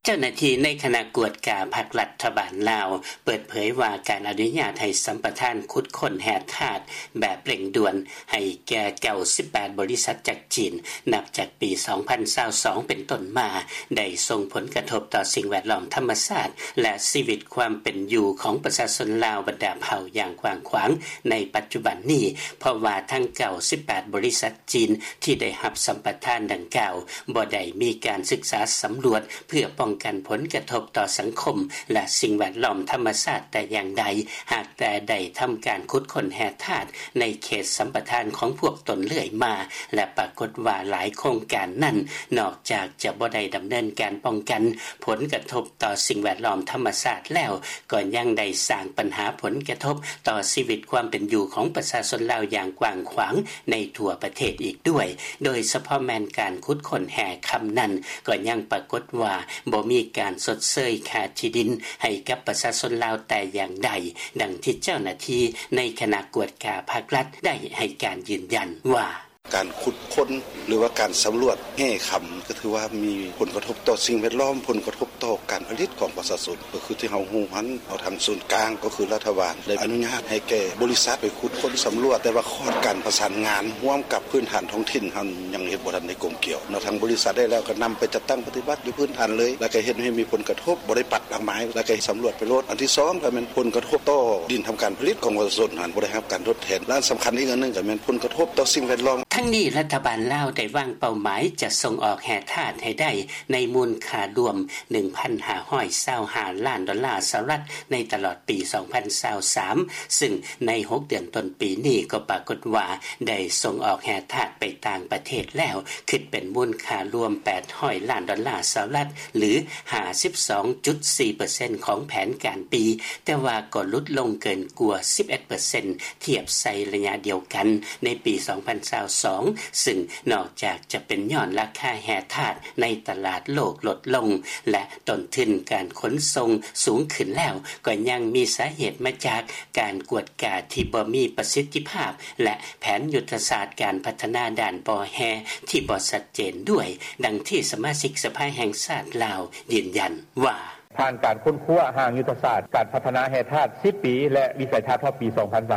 ເຈົ້າໜ້າທີ່ໃນຄະນະກວດກາພັກລັດຖະບານລາວ ເປີດເຜີຍວ່າ ການອະນຸຍາດໃຫ້ສຳປະທານຂຸດຄົ້ນແຮ່ທາດແບບເລັ່ງດ່ວນ ໃຫ້ແກ່ 98 ບໍລິສັດຈາກຈີນ ນັບຈາກປີ 2022 ເປັນຕົ້ນມາ ໄດ້ສົ່ງຜົນກະທົບຕໍ່ສິ່ງແວດລ້ອມທຳມະຊາດ ແລະ ຊີວິດຄວາມເປັນຢູ່ຂອງປະຊາຊົນລາວບັນດາເຜົ່າຢ່າງກວ້າງຂວາງໃນປັດຈຸບັນນີ້ ເພາະວ່າທັງ 98 ບໍລິສັດຈີນ ທີ່ໄດ້ຮັບສຳປະທານດັ່ງກ່າວ ບໍ່ໄດ້ມີການສຶກສາສຳຫຼວດ ເພື່ອປ້ອງກັນຜົນກະທົບຕໍ່ສັງຄົມ ແລະ ສິ່ງແວດລ້ອມທຳມະຊາດແຕ່ຢ່າງໃດ ຫາກແຕ່ໄດ້ທຳການຂຸດຄົ້ນແຮ່ທາດໃນເຂດສຳປະທານຂອງພວກຕົນເລື້ອຍມາ ແລະ ປາກົດວ່າຫຼາຍໂຄງການນັ້ນ ນອກຈາກຈະບໍ່ໄດ້ດຳເນີນການປ້ອງກັນຜົນກະທົບຕໍ່ສິ່ງແວດລ້ອມທຳມະຊາດແລ້ວ ກໍຍັງໄດ້ສ້າງບັນຫາຜົນກະທົບຕໍ່ຊີວິດຄວາມເປັນຢູ່ຂອງປະຊາຊົນລາວຢ່າງກວ້າງຂວາງໃນທົ່ວປະເທດອີກດ້ວຍ ໂດຍສະເພາະແມ່ນການຂຸດຄົ້ນແຮ່ຄຳນັ້ນ ກໍຍັງປາກົດວ່າບໍ່ມີການຊົດເຊີຍຄ່າທີ່ດິນໃຫ້ກັບປະຊາຊົນລາວແຕ່ຢ່າງໃດ, ດັ່ງທີ່ເຈົ້າໜ້າທີ່ໃນຄະນະກວດກາພັກລັດໄດ້ໃຫ້ການຢືນຢັນວ່າ: ການຂຸດຄົ້ນ ຫຼືວ່າການສຳຫຼວດແຮ່ຄຳ ກໍຖືວ່າມີຜົນກະທົບຕໍ່ສິ່ງແວດລ້ອມ, ຜົນກະທົບຕໍ່ການຜະລິດຂອງປະຊາຊົນ ກໍຄືທີ່ເຮົາຮູ້ຫັ້ນ ເອົາທາງສູນກາງ ກໍຄືລັດຖະບານ ໄດ້ອະນຸຍາດໃຫ້ແກ່ບໍລິສັດໄປຂຸດຄົ້ນສຳຫຼວດ, ແຕ່ວ່າຂອດການປະສານງານຮ່ວມກັບພື້ນຖານທ້ອງຖິ່ນຫັ້ນ ຍັງເຮັດບໍ່ທັນໄດ້ກົມກຽວເນາະ. ທາງບໍລິສັດໄດ້ແລ້ວກໍນຳໄປຈັດຕັ້ງປະຕິບັດຢູ່ພື້ນຖານເລີຍ ແລ້ວກໍເຮັດໃຫ້ມີຜົນກະທົບ ບໍ່ໄດ້ປັດດອກໄມ້ ແລ້ວກໍສຳຫຼວດໄປໂລດ. ອັນທີສອງກໍແມ່ນຜົນກະທົບຕໍ່ດິນທຳການຜະລິດຂອງປະຊາຊົນຫັ້ນ ບໍ່ໄດ້ຮັບການທົດແທນ ແລະ ອັນສຳຄັນອີກອັນໜຶ່ງກໍແມ່ນຜົນກະທົບຕໍ່ສິ່ງແວດລ້ອມ. ທັງນີ້ ລັດຖະບານລາວໄດ້ວາງເປົ້າໝາຍຈະສົ່ງອອກແຮ່ທາດໃຫ້ໄດ້ໃນມູນຄ່າລວມ ໜຶ່ງພັນຫ້າຮ້ອຍຊາວຫ້າລ້ານດອນລາສະຫະລັດ ໃນຕະຫຼອດປີ 2023 ຊຶ່ງໃນ 6 ເດືອນຕົ້ນປີນີ້ ກໍປາກົດວ່າໄດ້ສົ່ງອອກແຮ່ທາດໄປຕ່າງປະເທດແລ້ວ ຄິດເປັນມູນຄ່າລວມ 800 ລ້ານດອນລາສະຫະລັດ ຫຼື 52.4% ຂອງແຜນການປີ, ແຕ່ວ່າກໍຫຼຸດລົງເກີນກວ່າ 11% ທຽບໃສ່ໄລຍະດຽວກັນໃນປີ 2022 ຊຶ່ງນອກຈາກຈະເປັນຍ້ອນລາຄາແຮ່ທາດໃນຕະຫຼາດໂລກລົດລົງ ແລະ ຕົ້ນທຶນການຂົນສົ່ງສູງຂຶ້ນແລ້ວ, ກໍຍັງມີສາເຫດມາຈາກການກວດກາທີ່ບໍ່ມີປະສິດທິພາບ ແລະ ແຜນຍຸດທະສາດການພັດທະນາດ້ານບໍ່ແຮ່ທີ່ບໍ່ຊັດເຈນດ້ວຍ, ດັ່ງທີ່ສະມາຊິກສະພາແຫ່ງຊາດລາວຢືນຢັນວ່າ: ຜ່ານການຄົ້ນຄວ້າຮ່າງຍຸດທະສາດການພັດທະນາແຮ່ທາດ ສິບປີ ແລະ ວິໄສທັດຮອດປີ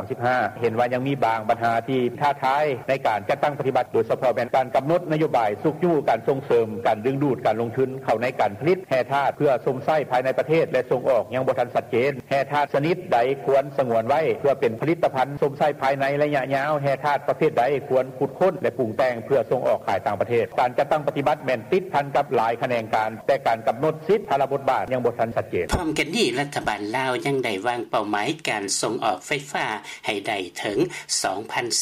2035 ເຫັນວ່າຍັງມີບາງບັນຫາທີ່ທ້າທາຍໃນການຈັດຕັ້ງປະຕິບັດ, ໂດຍສະເພາະແມ່ນການກຳນົດນະໂຍບາຍຊຸກຍູ້ການສົ່ງເສີມການດຶງດູດການລົງທຶນເຂົ້າໃນການຜະລິດແຮ່ທາດເພື່ອຊົມໃຊ້ພາຍໃນປະເທດ ແລະ ສົ່ງອອກຍັງບໍ່ທັນຊັດເຈນ. ແຮ່ທາດຊະນິດໃດຄວນສະຫງວນໄວ້ເພື່ອເປັນຜະລິດຕະພັນຊົມໃຊ້ພາຍໃນໄລຍະຍາວ, ແຮ່ທາດປະເພດໃດຄວນຂຸດຄົ້ນ ແລະ ປຸງແຕ່ງເພື່ອສົ່ງອອກຂາຍຕ່າງປະເທດ. ການຈັດຕັ້ງປະຕິບັດແມ່ນຕິດພັນກັບຫຼາຍຂະແໜງການ, ແຕ່ການກຳນົດສິດພາລະບົດບາດຍັງບໍ່ທັນຊັດເຈນ. ພ້ອມກັນນີ້ ລັດຖະບານລາວຍັງໄດ້ວາງເປົ້າໝາຍການສົ່ງອອກໄຟຟ້າໃຫ້ໄດ້ເຖິງ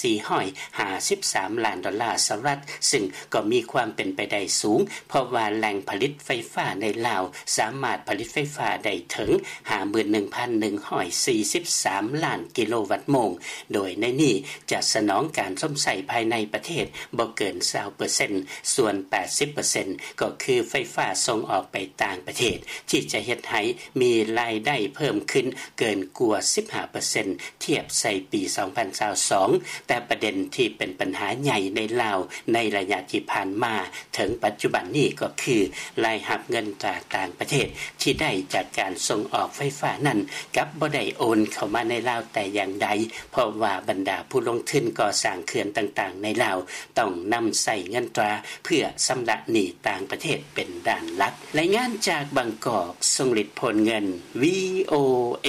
2,453 ລ້ານດອນລາສະຫະລັດ, ຊຶ່ງກໍມີຄວາມເປັນໄປໄດ້ສູງ ເພາະວ່າແຫຼ່ງຜະລິດໄຟຟ້າໃນລາວສາມາດຜະລິດໄຟຟ້າໄດ້ເຖິງ 51,143 ລ້ານກິໂລວັດໂມງ, ໂດຍໃນນີ້ຈະສະໜອງການຊົມໃຊ້ພາຍໃນປະເທດບໍ່ເກີນ 20% ສ່ວນ 80% ກໍຄືໄຟຟ້າສົ່ງອອກໄປຕ່າງປະເທດ ທີ່ຈະເຮັດໃຫ້ມີລາຍໄດ້ເພີ່ມຂຶ້ນເກີນກວ່າ 15% ທຽບໃສ່ປີ 2022, ແຕ່ປະເດັນທີ່ເປັນບັນຫາໃຫຍ່ໃນລາວໃນໄລຍະທີ່ຜ່ານມາເຖິງປັດຈຸບັນນີ້ກໍຄື ລາຍຮັບເງິນຕາຕ່າງປະເທດທີ່ໄດ້ຈາກການສົ່ງອອກໄຟຟ້ານັ້ນ ກັບບໍ່ໄດ້ໂອນເຂົ້າມາໃນລາວແຕ່ຢ່າງໃດ, ເພາະວ່າບັນດາຜູ້ລົງທຶນກໍ່ສ້າງເຂື່ອນຕ່າງໆໃນລາວ ຕ້ອງນຳໃຊ້ເງິນຕາເພື່ອຊຳລະໜີ້ຕ່າງປະເທດເປັນດ້ານຫຼັກ. ລາຍງານຈາກບາງກອກ, ຊົງລິດ ໂພນເງິນ, ວີໂອເອ.